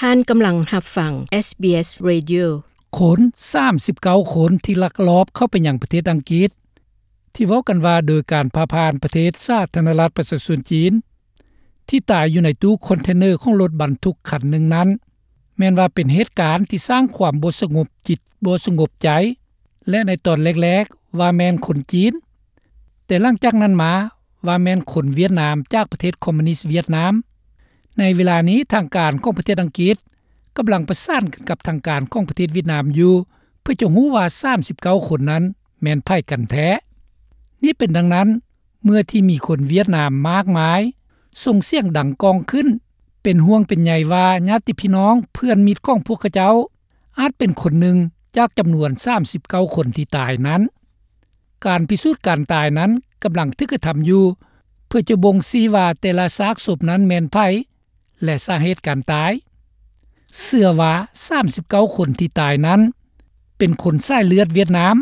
ທ່ານກຳລັງຮັບຟັງ SBS Radio. ຄົນສາມສິບເກົ້າຄົນທີ່ລັກລອບເຂົ້າໄປຍັງປະເທດອັງກິດ ທີ່ເວົ້າກັນວ່າໂດຍການຜ່າຜ່ານປະເທດສາທາລະນະລັດປະຊາຊົນຈີນ ທີ່ຕາຍຢູ່ໃນຕູ້ຄອນເທນເນີຂອງລົດບັນທຸກຄັນໜຶ່ງນັ້ນ ແມ່ນວ່າເປັນເຫດການທີ່ສ້າງຄວາມບໍ່ສະຫງົບຈິດບໍ່ສະຫງົບໃຈ ແລະ ໃນຕອນແລກໆວ່າແມ່ນຄົນຈີນ, ແຕ່ຫຼັງຈາກນັ້ນມາວ່າແມ່ນຄົນຫວຽດນາມຈາກປະເທດຄອມມູນິດຫວຽດນາມ. ໃນເວລານີ້ທາງການຂອງປະເທດອັງກິດກຳລັງປະສານກັນກັບທາງການຂອງປະເທດຫວຽດນາມຢູ່ ເພື່ອຈະຮູ້ວ່າສາມສິບເກົ້າຄົນນັ້ນແມ່ນໃຜກັນແທ້. ນີ້ເປັນດັ່ງນັ້ນ ເມື່ອທີ່ມີຄົນຫວຽດນາມມາກມາຍສົ່ງສຽງດັງກ້ອງຂຶ້ນ ເປັນຫ່ວງເປັນໃຍວ່າຍາດຕິພີ່ນ້ອງເພື່ອນມິດຂອງພວກເຂົາເຈົ້າ ອາດເປັນຄົນໜຶ່ງຈາກຈຳນວນສາມສິບເກົ້າຄົນທີ່ຕາຍນັ້ນ. ການພິສູດການຕາຍນັ້ນກຳລັງຖືກກະທຳຢູ່ ເພື່ອຈະບົ່ງຊີ້ວ່າແຕ່ລະຊາກສົບນັ້ນແມ່ນໃຜ ແລະ ສາເຫດການຕາຍ. ເຊື່ອວ່າສາມສິບເກົ້າຄົນທີ່ຕາຍນັ້ນເປັນຄົນສາຍເລືອດຫວຽດນາມ.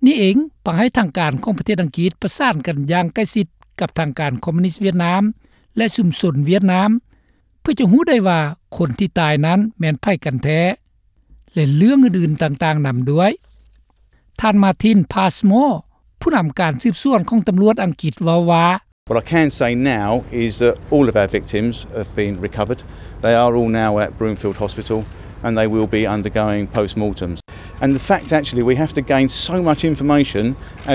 ນີ້ເອງ ປະໃຫ້ທາງການຂອງປະເທດອັງກິດປະສານກັນຢ່າງໃກ້ຊິດກັບທາງການຄອມມູນິດຫວຽດນາມ ແລະ ຊຸມຊົນຫວຽດນາມ ເພື່ອຈະຮູ້ໄດ້ວ່າຄົນທີ່ຕາຍນັ້ນແມ່ນໃຜກັນແທ້ ແລະ ເລື່ອງອື່ນໆຕ່າງໆນຳດ້ວຍ. ທ່ານ Martin Passmore ຜູ້ນຳການສືບສວນຂອງຕຳຫຼວດອັງກິດເວົ້າວ່າ What I can say now is that all of our victims have been recovered. They are all now at Broomfield Hospital and they will be undergoing post-mortems. And the fact, actually, we have to gain so much information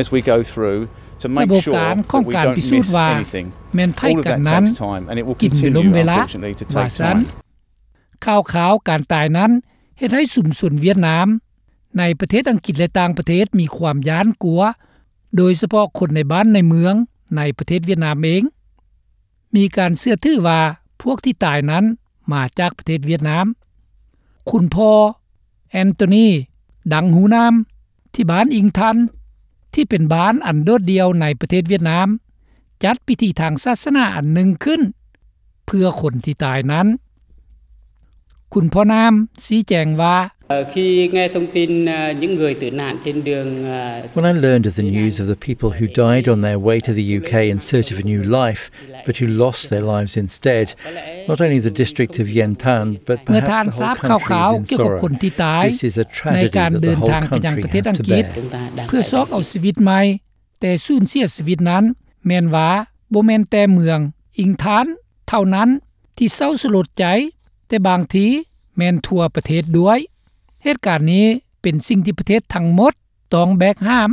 as we go through to make sure that we don't miss anything. ລະບົບການຂອງການພິສູດວ່າແມ່ນໃຜກັນນັ້ນ All of that takes time and it will continue, unfortunately, to take time. ຂ່າວຄາວການຕາຍນັ້ນເຮັດໃຫ້ຊຸມຊົນຫວຽດນາມໃນປະເທດອັງກິດ ແລະ ຕ່າງປະເທດມີຄວາມຢ້ານກົວ ໂດຍສະເພາະຄົນໃນບ້ານໃນເມືອງໃນປະເທດຫວຽດນາມເອງ ມີການເຊື່ອຖືວ່າພວກທີ່ຕາຍນັ້ນມາຈາກປະເທດຫວຽດນາມ. ຄຸນພໍ່ Anthony Dang Hu Nam ທີ່ບ້ານອິງທັນ ທີ່ເປັນບ້ານອັນໂດດດ່ຽວໃນປະເທດຫວຽດນາມ ຈັດພິທີທາງສາສະໜາອັນໜຶ່ງຂຶ້ນ ເພື່ອຄົນທີ່ຕາຍນັ້ນ. ຄຸນພໍ່ນາມຊີ້ແຈງວ່າ Khi nghe thông tin, à, những người tử nạn trên đường, à, When I learned of the news of the people who died on their way to the U K in search of a new life, but who lost their lives instead, not only the district of Yen Tan, but perhaps the whole country is in sorrow. ເມື່ອທ່ານຊາບຂ່າວໆກ່ຽວກັບຄົນທີ່ຕາຍ This is a tragedy that the whole country has to bear. ໃນການເດີນທາງໄປຍັງປະເທດອັງກິດ ເພື່ອຊອກເອົາຊີວິດໃໝ່ ແຕ່ສູນເສຍຊີວິດນັ້ນ ແມ່ນວ່າບໍ່ແມ່ນແຕ່ເມືອງອິງທານເທົ່ານັ້ນທີ່ເສົ້າສະຫຼົດໃຈ, ແຕ່ບາງທີແມ່ນທົ່ວປະເທດດ້ວຍ. ເຫດການນີ້ເປັນສິ່ງທີ່ປະເທດທັງໝົດຕ້ອງແບກຫາມ.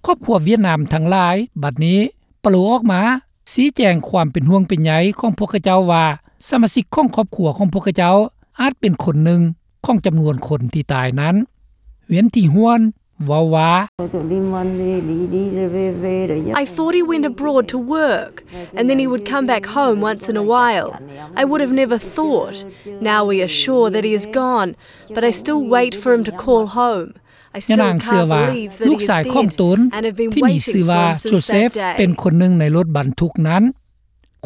ຄອບຄົວຫວຽດນາມທັງຫຼາຍບັດນີ້ປະໂລອອກມາຊີ້ແຈງຄວາມເປັນຫ່ວງເປັນໃຍຂອງພວກເຂົາເຈົ້າວ່າ ສະມາຊິກຂອງຄອບຄົວຂອງພວກເຂົາເຈົ້າອາດເປັນຄົນໜຶ່ງຂອງຈຳນວນຄົນທີ່ຕາຍນັ້ນ. ຫວຽນ ທີຮວນ ເວົ້າວ່າ I thought he went abroad to work and then he would come back home once in a while. I would have never thought. Now we are sure that he is gone, but I still wait for him to call home. I still can't believe that he is dead and have been waiting for him since that day. ຍານາງເຊື່ອວ່າລູກຊາຍຂອງຕົນທີ່ມີຊື່ວ່າໂຈເຊັບ ເປັນຄົນໜຶ່ງໃນລົດບັນທຸກນັ້ນ.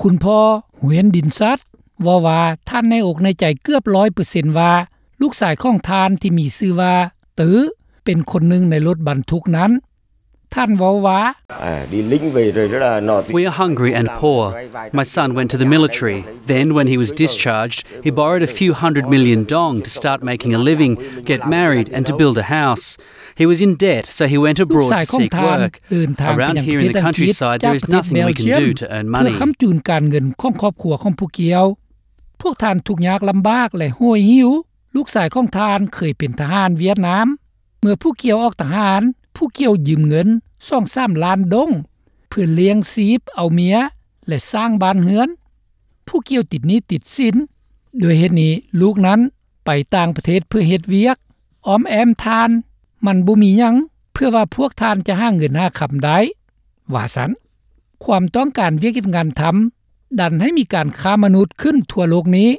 ຄຸນພໍ່ ຫວຽນ ດິນຊັດ ເວົ້າວ່າທ່ານແນ່ອົກແນ່ໃຈເກືອບຮ້ອຍເປີເຊັນວ່າ ລູກຊາຍຂອງທ່ານທີ່ມີຊື່ວ່າ ຕື້ ເປັນຄົນໜຶ່ງໃນລົດບັນທຸກນັ້ນ. ທ່ານເວົ້າວ່າ We are hungry and poor. My son went to the military. Then, when he was discharged, he borrowed a few hundred million dong to start making a living, get married, and to build a house. He was in debt, so he went abroad to seek work. Around here in the countryside, there is nothing we can do to earn money. ລູກຊາຍຂອງທ່ານເດີນທາງໄປຍັງປະເທດອັງກິດຈາກປະເທດເບລຈຽມ ເພື່ອຄ້ຳຈູນການເງິນຂອງຄອບຄົວຂອງພວກເຂົາ. ພວກທ່ານທຸກຍາກລຳບາກ ແລະ ໂຫຍຫິວ. ລູກຊາຍຂອງທ່ານເຄີຍເປັນທະຫານຫວຽດນາມ. ເມື່ອຜູ້ກ່ຽວອອກທະຫານ, ຜູ້ກ່ຽວຢືມເງິນສອງສາມລ້ານດົງ ເພື່ອລ້ຽງຊີບເອົາເມຍ ແລະ ສ້າງບ້ານເຮືອນ. ຜູ້ກ່ຽວຕິດໜີ້ຕິດສິນ. ດ້ວຍເຫດນີ້ ລູກນັ້ນໄປຕ່າງປະເທດເພື່ອເຮັດວຽກ. ອ້ອມແອ້ມທ່ານ, ມັນບໍ່ມີຫຍັງເພື່ອວ່າພວກທ່ານຈະຫາເງິນຫາຄຳໄດ້, ວ່າຊັ້ນ. ຄວາມຕ້ອງການວຽກເຮັດງານທຳ ດັນໃຫ້ມີການຄ້າມະນຸດຂຶ້ນທົ່ວໂລກນີ້.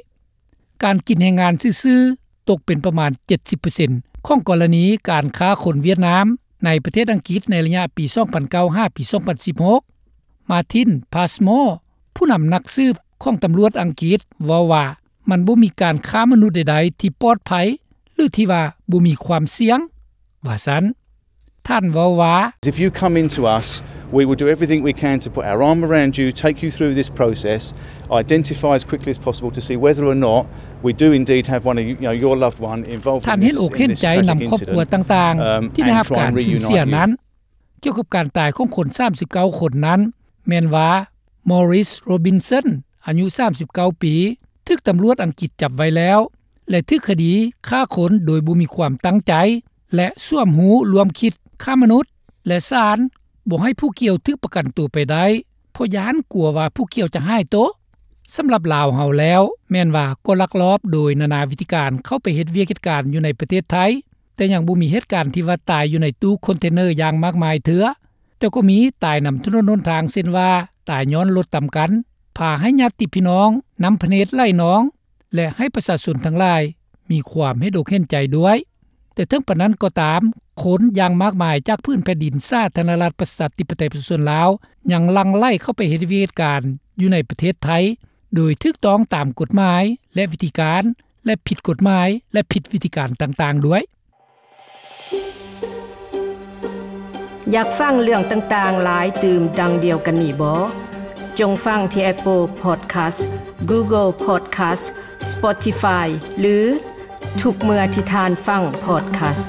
ການກິນແຮງງານຊື່ໆ ຕົກເປັນປະມານເຈັດສິບເປີເຊັນຂອງກໍລະນີການຄ້າຄົນຫວຽດນາມໃນປະເທດອັງກິດໃນໄລຍະປີສອງພັນເກົ້າຫາປີສອງພັນສິບຫົກ. ມາທິນ ພາສມໍ ຜູ້ນຳນັກສືບຂອງຕຳຫຼວດອັງກິດ ເວົ້າວ່າ ມັນບໍ່ມີການຄ້າມະນຸດໃດໆທີ່ປອດໄພ ຫຼື ທີ່ວ່າບໍ່ມີຄວາມສ່ຽງ, ວ່າຊັ້ນ. ທ່ານເວົ້າວ່າ If you come into us We will do everything we can to put our arm around you, take you through this process, identify as quickly as possible to see whether or not we do indeed have one of you, you know, your loved one involved in this, in this tragic incident. ທ່ານເຫັນອົກເຫັນໃຈນຳຄອບຄົວຕ່າງໆ ທີ່ໄດ້ຮັບການສູນເສຍນັ້ນ. ກ່ຽວກັບການຕາຍຂອງຄົນສາມສິບເກົ້າຄົນນັ້ນ ແມ່ນວ່າ Maurice Robinson ອາຍຸສາມສິບເກົ້າປີ ຖືກຕຳຫຼວດອັງກິດຈັບໄວ້ແລ້ວ ແລະ ຖືກຄະດີຂ້າຄົນໂດຍບໍ່ມີຄວາມຕັ້ງໃຈ ແລະ ສວມຮູ້ຮ່ວມຄິດຄ້າມະນຸດ ແລະ ສານບໍ່ໃຫ້ຜູ້ກ່ຽວຖືກປະກັນຕົວໄປໄດ້ ເພາະຢ້ານກົວວ່າຜູ້ກ່ຽວຈະຫາຍໂຕ. ສຳລັບລາວເຮົາແລ້ວ ແມ່ນວ່າກໍລັກລອບໂດຍນານາວິທີການເຂົ້າໄປເຮັດວຽກເຮັດການຢູ່ໃນປະເທດໄທ, ແຕ່ຍັງບໍ່ມີເຫດການທີ່ວ່າຕາຍຢູ່ໃນຕູ້ຄອນເທນເນີຢ່າງມາກມາຍເທື່ອ, ແຕ່ກໍມີຕາຍນຳຖະໜົນຫົນທາງ ເຊັ່ນວ່າຕາຍຍ້ອນລົດຕຳກັນ, ພາໃຫ້ຍາດຕິພີ່ນ້ອງ, ນ້ຳພະເນດໄຫຼນອງ ແລະ ໃຫ້ປະຊາຊົນທັງຫຼາຍມີຄວາມເຫັນອົກເຫັນໃຈດ້ວຍ. ແຕ່ເຖິງປານນັ້ນກໍຕາມ, ຄົນຢ່າງມາກມາຍຈາກພື້ນແຜ່ນດິນສາທາລະນະລັດປະຊາທິປະໄຕປະຊາຊົນລາວ ຍັງຫຼັ່ງໄຫຼເຂົ້າໄປເຮັດວຽກເຮັດການຢູ່ໃນປະເທດໄທ ໂດຍຖືກຕ້ອງຕາມກົດໝາຍ ແລະ ວິທີການ ແລະ ຜິດກົດໝາຍ ແລະ ຜິດວິທີການຕ່າງໆດ້ວຍ. ຢາກຟັງເລື່ອງຕ່າງໆຫຼາຍຕື່ມດັ່ງດຽວກັນນີ້ບໍ? ຈົ່ງຟັງທີ່ Apple Podcast, Google Podcast, Spotify ຫຼື ທຸກເມື່ອທີ່ທ່ານຟັງ podcast.